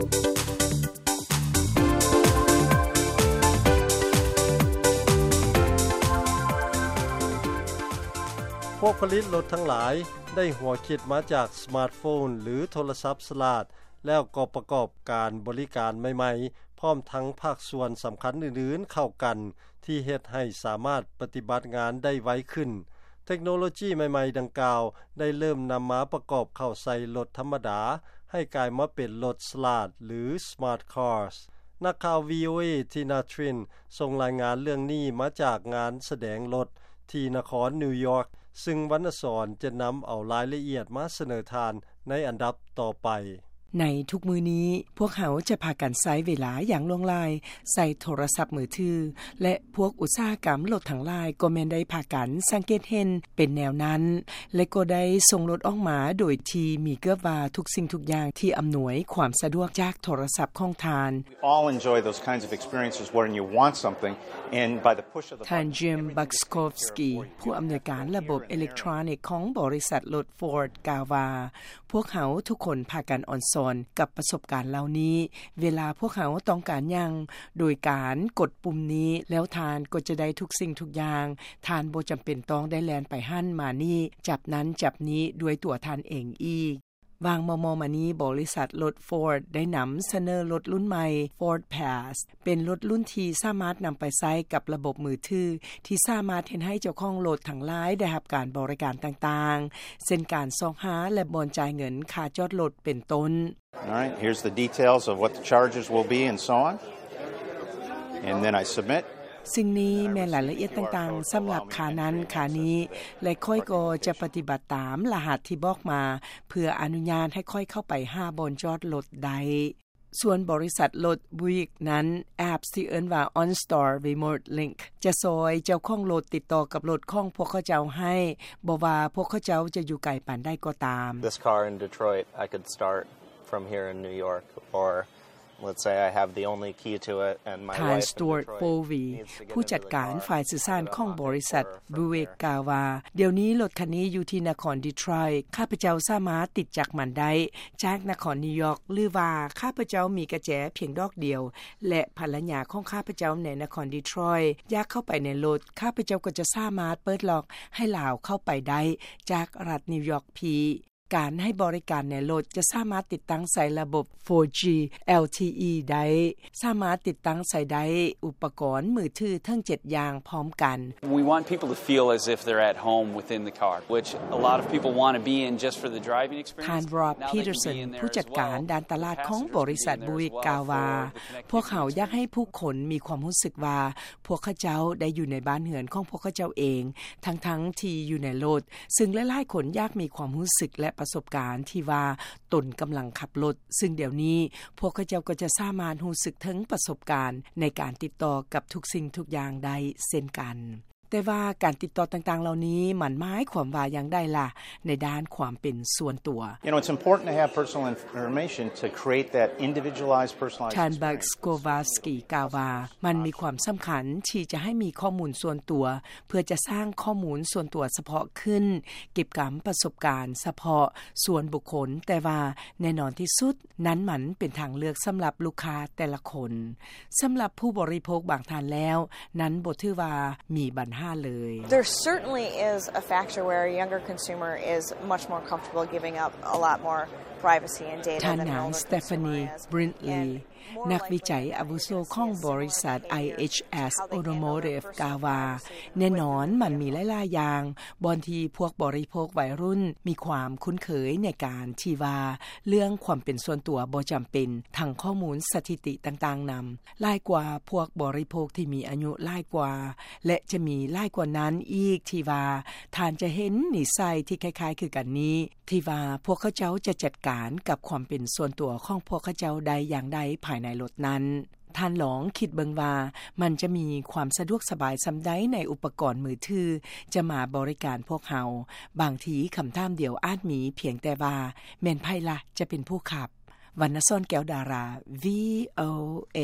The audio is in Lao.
ພວກຜະລິດລົດທັງຫຼາຍໄດ້ຫົວຄິດມາຈາກສະມາດໂຟນ ຫຼື ໂທລະສັບສະຫຼາດ ແລ້ວກໍປະກອບການບໍລິການໃໝ່ໆ ພ້ອມທັງພາກສ່ວນສຳຄັນອື່ນໆເຂົ້າກັນ ທີ່ເຮັດໃຫ້ສາມາດປະຕິບັດງານໄດ້ໄວຂຶ້ນ. ເທັກໂນໂລຈີໃໝ່ໆດັ່ງກ່າວ ໄດ້ເລີ່ມນຳມາປະກອບເຂົ້າໃສ່ລົດທຳມະດາ ໃຫ້ກາຍມາເປັນລົດສະຫຼາດ ຫຼື ສະມາດຄາສ. ນັກຂ່າວ ວີໂອເອ ທີນາ ທຣິນ ສົ່ງລາຍງານເລື່ອງນີ້ມາຈາກງານສະແດງລົດທີ່ນະຄອນນິວຢອກ ຊຶ່ງວັນນະສອນຈະນຳເອົາລາຍລະອຽດມາສະເໜີທ່ານໃນອັນດັບຕໍ່ໄປ. ໃນທຸກມື້ນີ້ ພວກເຮົາຈະພາກັນໃຊ້ເວລາຢ່າງຫຼວງຫຼາຍໃສ່ໂທລະສັບມືຖື ແລະ ພວກອຸດສາຫະກຳລົດທັງຫຼາຍກໍແມ່ນໄດ້ພາກັນສັງເກດເຫັນເປັນແນວນັ້ນ ແລະ ກໍໄດ້ສົ່ງລົດອອກມາໂດຍທີ່ມີເກືອບວ່າທຸກສິ່ງທຸກຢ່າງທີ່ອຳນວຍຄວາມສະດວກຈາກໂທລະສັບຂອງທ່ານ. We all enjoy those kinds of experiences wherein you want something and by the push of the button, ທ່ານ Jim Buczkowski ຜູ້ອຳນວຍການລະບົບເອເລັກໂທຣນິກຂອງບໍລິສັດລົດ Ford ກ່າວວ່າ ພວກເຮົາທຸກຄົນພາກັນອອນຊອນກັບປະສົບການເຫຼົ່ານີ້. ເວລາພວກເຮົາຕ້ອງການຫຍັງ ໂດຍການກົດປຸ່ມນີ້ ແລ້ວທ່ານກໍຈະໄດ້ທຸກສິ່ງທຸກຢ່າງ. ທ່ານບໍ່ຈຳເປັນຕ້ອງໄດ້ແລ່ນໄປຫັ້ນມານີ້, ຈັບນັ້ນຈັບນີ້ດ້ວຍຕົວທ່ານເອງອີກ. ຫວ່າງມໍ່ໆມານີ້, ບໍລິສັດລົດ Ford ໄດ້ນຳສະເໜີລົດລຸ້ນໃໝ່ Ford Pass ເປັນລົດລຸ້ນທີ່ສາມາດນຳໄປໃຊ້ກັບລະບົບມືຖື ທີ່ສາມາດເຮັດໃຫ້ເຈົ້າຂອງລົດທັງຫຼາຍໄດ້ຮັບການບໍລິການຕ່າງໆ ເຊັ່ນການຊອກຫາ ແລະ ບ່ອນຈ່າຍເງິນຄ່າຈອດລົດເປັນຕົ້ນ. All right, here's the details of what the charges will be and so on. And then I submit. ສິ່ງນີ້ແມ່ນລາຍລະອຽດຕ່າງໆສຳລັບຄ່ານັ້ນຄ່ານີ້ ແລະ ຂ້ອຍກໍຈະປະຕິບັດຕາມລະຫັດທີ່ບອກມາ ເພື່ອອະນຸຍາດໃຫ້ຂ້ອຍເຂົ້າໄປຫາບ່ອນຈອດລົດໄດ້. ສ່ວນບໍລິສັດລົດ Buick ນັ້ນ ແອັບທີ່ເອີ້ນວ່າ OnStar Remote Link ຈະຊ່ອຍເຈົ້າຂອງລົດຕິດຕໍ່ກັບລົດຂອງພວກເຂົາເຈົ້າໃຫ້, ບໍ່ວ່າພວກເຂົາເຈົ້າຈະຢູ່ໄກປານໃດກໍຕາມ. This car in Detroit, I could start from here in New York, or let's say I have the only key to it and my wife in Detroit needs to get into the car. ທ່ານ Stuart Folvey ຜູ້ຈັດການຝ່າຍສື່ສານຂອງບໍລິສັດ Buick ກ່າວວ່າ, ດຽວນີ້ລົດຄັນນີ້ຢູ່ທີ່ນະຄອນ Detroit, ຂ້າພະເຈົ້າສາມາດຕິດຈັກມັນໄດ້ຈາກນະຄອນນິວຢອກ ຫຼືວ່າຂ້າພະເຈົ້າມີກະແຈພຽງດອກດຽວ ແລະ ພັນລະຍາຂອງຂ້າພະເຈົ້າໃນນະຄອນ Detroit ຢາກເຂົ້າໄປໃນລົດ, ຂ້າພະເຈົ້າກໍຈະສາມາດເປີດລັອກໃຫ້ລາວເຂົ້າໄປໄດ້ຈາກລັດນິວຢອກພີ. ການໃຫ້ບໍລິການໃນລົດຈະສາມາດຕິດຕັ້ງໃສ່ລະບົບ ໂຟຈີ ແອລທີອີ ໄດ້, ສາມາດຕິດຕັ້ງໃສ່ໄດ້ອຸປະກອນມືຖືເຖິງເຈັດຢ່າງພ້ອມກັນ. We want people to feel as if they're at home within the car, which a lot of people want to be in just for the driving experience. ທ່ານ Rob Peterson ຜູ້ຈັດການດ້ານຕະຫຼາດຂອງບໍລິສັດ Buick ກ່າວວ່າ, ພວກເຮົາຢາກໃຫ້ຜູ້ຄົນມີຄວາມຮູ້ສຶກວ່າ ພວກເຂົາເຈົ້າໄດ້ຢູ່ໃນບ້ານເຮືອນຂອງພວກເຂົາເຈົ້າເອງ ທັງໆທີ່ຢູ່ໃນລົດ, ຊຶ່ງຫຼາຍໆຄົນຢາກມີຄວາມຮູ້ສຶກ ແລະ ປະສົບການທີ່ວ່າຕົນກຳລັງຂັບລົດ, ຊຶ່ງດຽວນີ້ພວກເຂົາເຈົ້າກໍຈະສາມາດຮູ້ສຶກເຖິງປະສົບການໃນການຕິດຕໍ່ກັບທຸກສິ່ງທຸກຢ່າງໄດ້ເຊັ່ນກັນ. ແຕ່ວ່າການຕິດຕໍ່ຕ່າງໆເຫຼົ່ານີ້ ມັນໝາຍຄວາມວ່າຢ່າງໃດລະ ໃນດ້ານຄວາມເປັນສ່ວນຕົວ? You know, it's important to have personal information to create that individualized, personalized experience. ທ່ານ Buczkowski ກ່າວວ່າ, ມັນມີຄວາມສຳຄັນທີ່ຈະໃຫ້ມີຂໍ້ມູນສ່ວນຕົວ ເພື່ອຈະສ້າງຂໍ້ມູນສ່ວນຕົວສະເພາະຂຶ້ນ, ເກັບກຳປະສົບການສະເພາະສ່ວນບຸກຄົນ, ແຕ່ວ່າແນ່ນອນທີ່ສຸດ, ນັ້ນມັນເປັນທາງເລືອກສຳລັບລູກຄ້າແຕ່ລະຄົນ. ສຳລັບຜູ້ບໍລິໂພກບາງທ່ານແລ້ວ, ນັ້ນບໍ່ຖືວ່າມີບັນຫາເລີຍ. There certainly is a factor where a younger consumer is much more comfortable giving up a lot more privacy and data than an older consumer is. ທ່ານນາງ Stephanie Brindley ນັກວິໄຈອາວຸໂສຂອງບໍລິສັດ ໄອເອັດເອັສ Automotive ກ່າວວ່າ, ແນ່ນອນມັນມີຫຼາຍໆຢ່າງ ບ່ອນທີ່ພວກບໍລິໂພກໄວລຸ້ນມີຄວາມຄຸ້ນເຄີຍໃນການທີ່ວ່າເລື່ອງຄວາມເປັນສ່ວນຕົວບໍ່ຈຳເປັນ, ທັງຂໍ້ມູນສະຖິຕິຕ່າງໆນຳ, ຫຼາຍກວ່າພວກບໍລິໂພກທີ່ມີອາຍຸຫຼາຍກວ່າ ແລະ ຈະມີຫຼາຍກວ່ານັ້ນອີກທີ່ວ່າທ່ານຈະເຫັນນິໄສທີ່ຄ້າຍໆຄືກັນນີ້, ທີ່ວ່າພວກເຂົາເຈົ້າຈະຈັດການກັບຄວາມເປັນສ່ວນຕົວຂອງພວກເຂົາເຈົ້າໄດ້ຢ່າງໃດພາຍໃນລົດນັ້ນ. ທ່ານລອງຄິດເບິ່ງວ່າມັນຈະມີຄວາມສະດວກສະບາຍສ່ຳໃດໃນອຸປະກອນມືຖືຈະມາບໍລິການພວກເຮົາ. ບາງທີຄຳຖາມດຽວອາດມີພຽງແຕ່ວ່າ ແມ່ນໃຜລະຈະເປັນຜູ້ຂັບ? ວັນນະສອນ ແກ້ວດາລາ ວີໂອເອ.